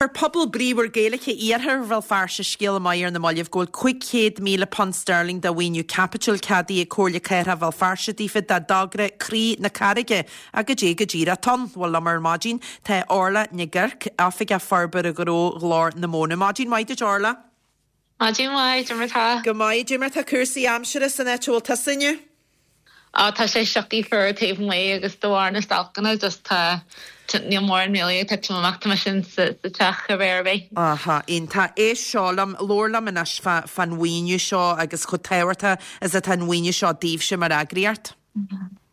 Chuir pobal bríomhar Gaeilge Iarthar Bhéal Feirste scéala maith ar na mallaibh go bhfuil £500,000 sterling de mhaoiniú caipitil ceadaithe ag Comhairle Cathrach Bhéal Feirste daofa dá dtogra Croí na Carraige ach goidé go díreach atá ann. Bhuel liom ar maidin tá Orla Nic Oirc, Oifigeach Forbartha Gnó Ghlór na Móna. Maidin mhaith duit Orla. Maidin mhaith, cad é mar tá? Go maith, cad é mar tá cúrsaí aimsire san áit a bhfuil tusa inniu? Á, tá sé sioctha fuar taobh amuigh agus de bharr na stailceanna just tá, níl mórán really ag titim amach, tá mise sa teach cibé ar bith. Aha, iontach. Éist seo liom, labhair liom anois fá, fán mhaoiniú seo agus chomh tábhachtach is atá an mhaoiniú seo daoibhse mar eagraíocht.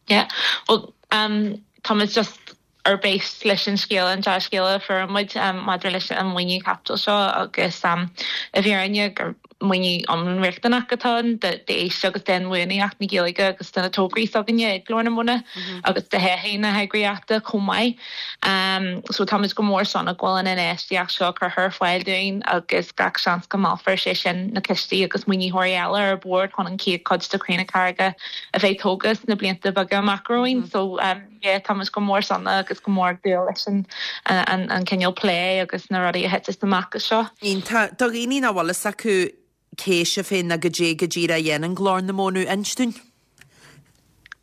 Yeah, bhuel, táimid just ar bís leis an scéala, an dea-scéala a fuair muid maidir leis an maoiniú caipitil seo agus i bhfírinne gur maoiniú iomlán riachtanach atá ann d'fhís agus d'inbhuanaitheacht na Gaeilge agus do na tograí s'againne ag Glór na Móna agus do thodhchaí na heagraíochta chomh maith. So táimid go mór sona go bhfuil an infheistíocht seo curtha ar fáil dúinn agus gach seans go meallfar sé sin na cistí agus maoinitheoirí eile ar bord chun an chéad chuid de Chroí na Carraige a bheith tógtha sna blianta beaga amach romhainn. So yeah, táimid go mór sona agus go mór ag dúil leis an an cineál plé agus na rudaí a thiteas amach as seo. Iontach. Do dhaoine nach bhfuil fhios acu cé sibh féin ná goidé go díreach a dhéanann Glór na Móna, inis dúinn.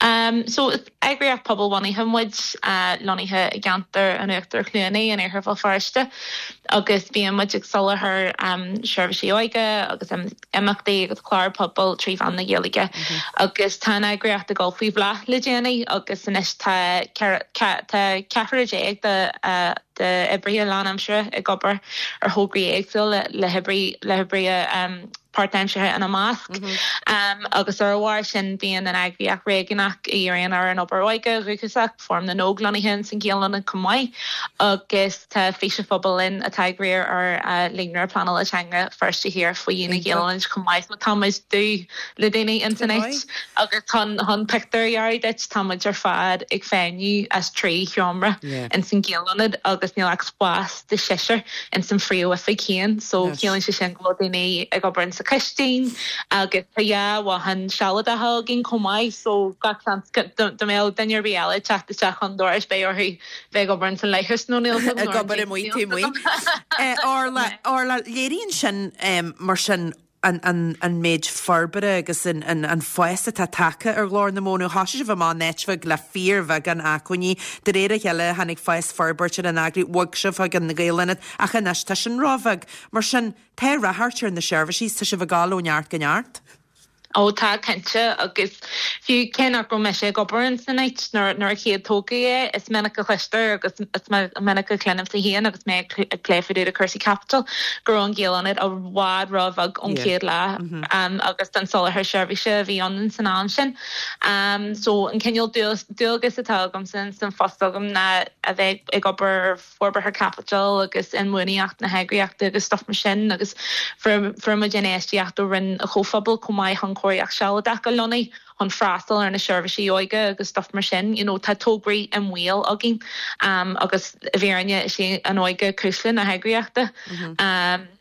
Um, so is eagraíocht pobalbhunaithe muid, lonnaithe i gceantar an Uachtar Chluanaí in Iarthar Bhéal Feirste agus bíonn muid ag soláthar um, seirbhísí óige agus imeachtaí agus cláir pobail 3 mheán na Gaeilge agus tá an eagraíocht ag dul faoi bhláth le déanaí agus anois tá tá ceathrar déag de d'oibrithe lánaimseartha ag obair ar thograí éagsúla le hoibrí le hoibrithe páirtaimseartha ina measc agus ar a bharr sin bíonn an eagraíocht réigiúnach a dhíríonn ar an obair óige dhúchasach, Fóram na nÓg lonnaithe ins an Ghaelaonad chomh maith agus tá Fís an Phobail linn atá ag riar ar Líonra Pleanála Teanga Feirste Thiar faoi dhíon an Ghaelaonaid chomh maith. So tá muid dubh le daoine ins an áit agus chun chun pictiúr a dhearadh duit tá muid ar fad ag feidhmiú as 3 sheomra ins an Ghaelaonad agus níl ach spás do sheisear ins an phríomhoifig féin so ciallaíonn sé sin go bhfuil daoine ag obair insa chistin agus tá dhá bhothán sealadacha againn chomh maith so gach seans go dá mbeadh duine ar bith eile ag teacht isteach chun dorais beidh orthu bheith ag obair ins an leithreas nó níl ag obair amuigh taobh amuigh. Orla, Orla, léiríonn sin mar sin an, an, an méid forbartha agus an, an, an fás atá tagtha ar Ghlór na Móna. Thosaigh sibh amach in áit bheag le fíorbheagán acmhainní. De réir a chéile tháinig fás forbairt ar an eagraíocht, bhog sibh chuig an Ghaelaonad ach anois tá sin róbheag. Mar sin, tá ráchairt ar na seirbhísí, tá sibh ag dul ó neart go neart. Ó tá, cinnte, agus fiú cé nach raibh mise ag obair ins an áit nuair a chéad tógadh é, is minic a chloistear agus is minic a chluinimse féin agus mé ag plé fá dtaobh de cúrsaí caipitil go raibh an Gaelaonad i bhfad ró-bheag ón chéad lá agus don soláthar seirbhíse a bhí ann san am sin. So an cineál dualgas atá agamsa ins an phost agam ná a bheith ag obair ar forbartha caipitil agus inbhuanaitheacht na heagraíochta agus stuff mar sin agus fuair muid infheistíocht ó Roinn an Chomhphobail chomh maith chun cóiríocht sealadach a lonnú chun freastal ar na seirbhísí óige agus stuff mar sin. You know tá tograí i mbaol againn agus i bhfírinne is é an óige cuisle na heagraíochta.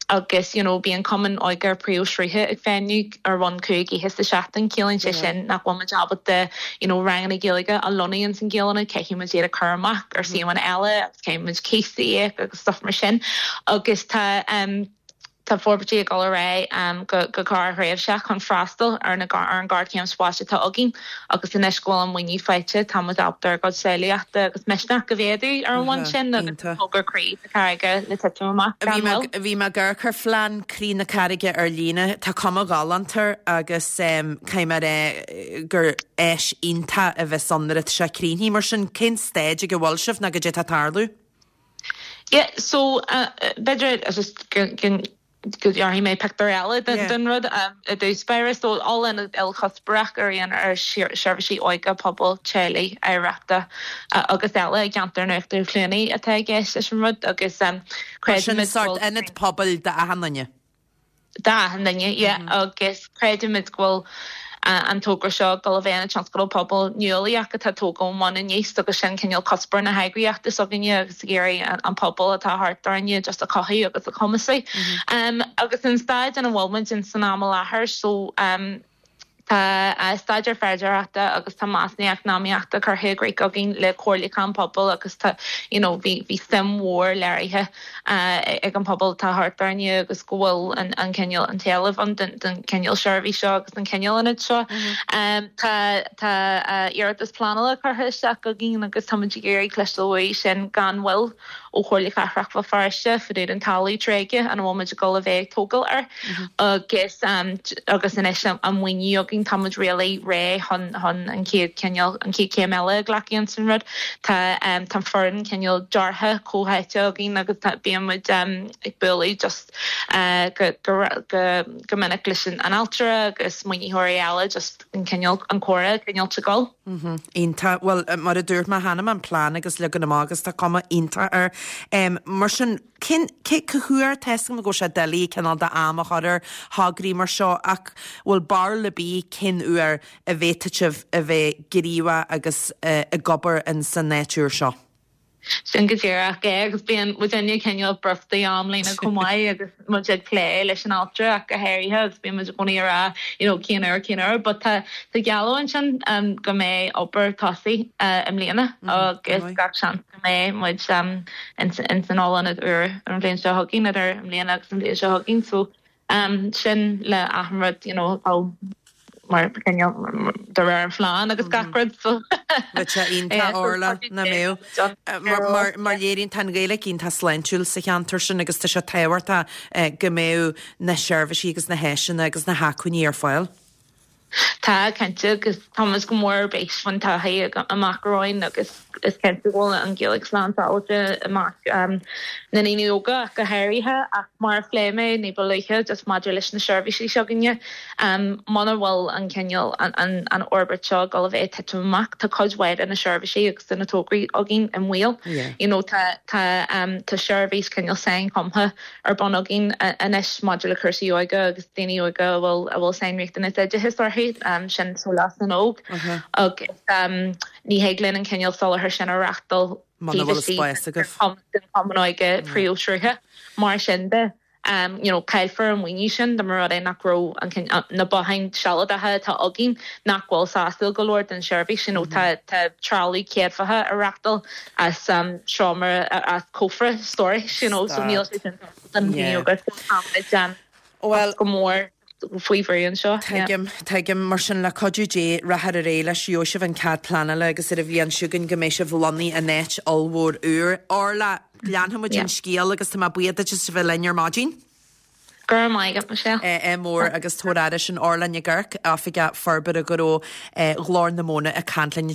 Agus you know bíonn cumann óige príomhshrutha ag feidhmiú ar bhonn 5 oíche sa seachtain, ciallaíonn sé sin nach bhfuil muid ábalta you know ranganna Gaeilge a lonnú ins an Ghaelaonad, caithfidh muid iad a chur amach ar suíomhanna eile agus caithfidh muid cíos a íoc agus stuff mar sin. Agus tá um tá forbairtí ag dul ar aghaidh um go go gearrthréimhseach chun freastal ar na ar an ghéarchéim spáis atá againn agus anois go bhfuil an maoiniú faighte tá muid ábalta ár gcuid samhlaíochta agus misneach a mhéadú ar an bhonn sin agus togra Croí na Carraige le titim amach gan mhoill. Bhí mé ag amharc ar phlean Croí na Carraige ar líne. Tá cuma ghalánta air agus caithfidh mé a rá gur áis iontach a bheas ann nuair atá sé críochnaithe. Mar sin, cén staid ag a bhfuil sibh nó goidé atá ag tarlú? Yeah, so b'fhéidir just go go dhearfaidh mé pictiúr eile den rud i dtús báire. So ollionad ilchuspóireach a dhíríonn ar sheirbhísí óige, pobail, teaghlaigh, oidhreachta agus eile i gceantar an Uachtar Chluanaí atá i gceist leis an rud agus creidimid go bhfuil. Sórt ionad pobail d'achan duine. D'achan duine, yeah, agus creidimid go bhfuil an togra seo ag dul a bheith ina tionscadal pobail nuálaíoch atá ag tógáil ón mbun aníos agus sin cineál cuspóir na heagraíochta s'againne agus ag iarraidh an pobal atá thart orainne just a chothú agus a chumasú. Agus an staid ina bhfuil muid in san am i láthair so. Tá staidéar féidearthachta agus tá measúnú eacnamaíochta curtha i gcrích againn le comhairliúchán pobail agus tá you know bhí bhí suim mhór léirithe ag an pobal atá thart orainne agus go bhfuil an an cineál an t-éileamh ann don don cineál seirbhís seo agus don cineál ionaid seo. Tá tá iarratas pleanála curtha isteach againn agus táimid ag iarraidh cloisteáil uaidh sin gan mhoill. ó Chomhairle Cathrach Bhéal Feirste fá dtaobh den talamh tréigthe ina bhfuil muid ag dul a bheith ag tógáil air agus agus anois an maoiniú againn tá muid really réidh chun chun an chéad cineál an chéad chéim eile a ghlacadh ins an rud. Tá tá foireann cineál deartha comhtháite againn agus tá bíonn muid ag bualadh just go go go go minic leis an ailtire agus maoinitheoirí eile just an cineál an comhrá cineál ag dul. Iontach. Bhuel, mar a dúirt mé cheana, an plean agus leagan amach agus tá cuma iontach air. Mar sin, cén, cé, cá huair, tá 'fhios agam go bhfuil sé doiligh cineál de am a chur ar thograí mar seo ach bhfuil barúil ar bith cén uair a bhféadfadh sibh a bheith gníomhach agus ag obair in san áit úr seo? Sin go díreach é agus bíonn muidinne cineál brúite amlíne chomh maith agus muid ag plé leis an ailtire ach go háirithe agus bíonn muid i gcónaí ag rá you know cén uair, cén uair but tá tá gealladh ansin go mbeidh obair tosaithe i mbliana agus gach seans go mbeidh muid ins ins an ollionad úr an bhliain seo chugainn idir i mbliana agus an bhliain seo chugainn so Sin le achan rud you know atá mar cineál de réir an phlean agus gach rud so. Bheadh sé iontach Orla, nach mbeadh? Mar mar léiríonn tá an Ghaeilge iontach sláintiúil sa cheantar sin agus tá sé tábhachtach go mbeadh na seirbhísí agus na háiseanna agus na hacmhainní ar fáil. Tá, cinnte, agus tá muid go mór ar bís faoin todhchaí amach romhainn agus is cinnte go bhfuil an Ghaeilge slán sábháilte i measc na ndaoine óga ach go háirithe. Ach mar a phléigh mé ní ba luaithe, just maidir leis na seirbhísí s'againne, muna bhfuil an cineál, an fhorbairt seo ag dul a bheith ag titim amach, tá cuid mhaith de na seirbhísí agus de na tograí againn i mbaol. You know, tá, tá, tá seirbhís cineál sainchumtha ar bun againn anois maidir le cúrsaí óige agus daoine óga a bhfuil a bhfuil sainriachtanas oideachais orthu, sin Sólás na nÓg, agus ní thig linn an cineál soláthair sin a reáchtáil taobh istigh den Chumann Óige príomhshrutha. Mar sin de, you know, caillfear an maoiniú sin dá mba rud é nach raibh an na botháin sealadacha atá againn nach bhfuil sásúil go leor don seirbhís, you know, tá tá trealamh céadfaithe á reáchtáil as seomra, as cófra stórais, you know, so níl sé sin don daoine óga so tá muid Bhuel, go mór faoi bhrú anseo. Tuigim, tuigim. Mar sin, le cuidiú Dé, rachaidh ar aghaidh leis, gheobhaidh sibh an cead pleanála agus ar an bhliain seo chugainn go mbeidh sibh lonnaithe in áit ollmhór úr. Orla, leanfaidh muid an scéal agus tá mé buíoch duit as a bheith linn ar maidin. Go raibh maith agat, Michelle. Ádh mór agus tabhair aire sin Orla Nic Oirc, Oifigeach Forbartha Gnó Ghlór na Móna ag caint linn.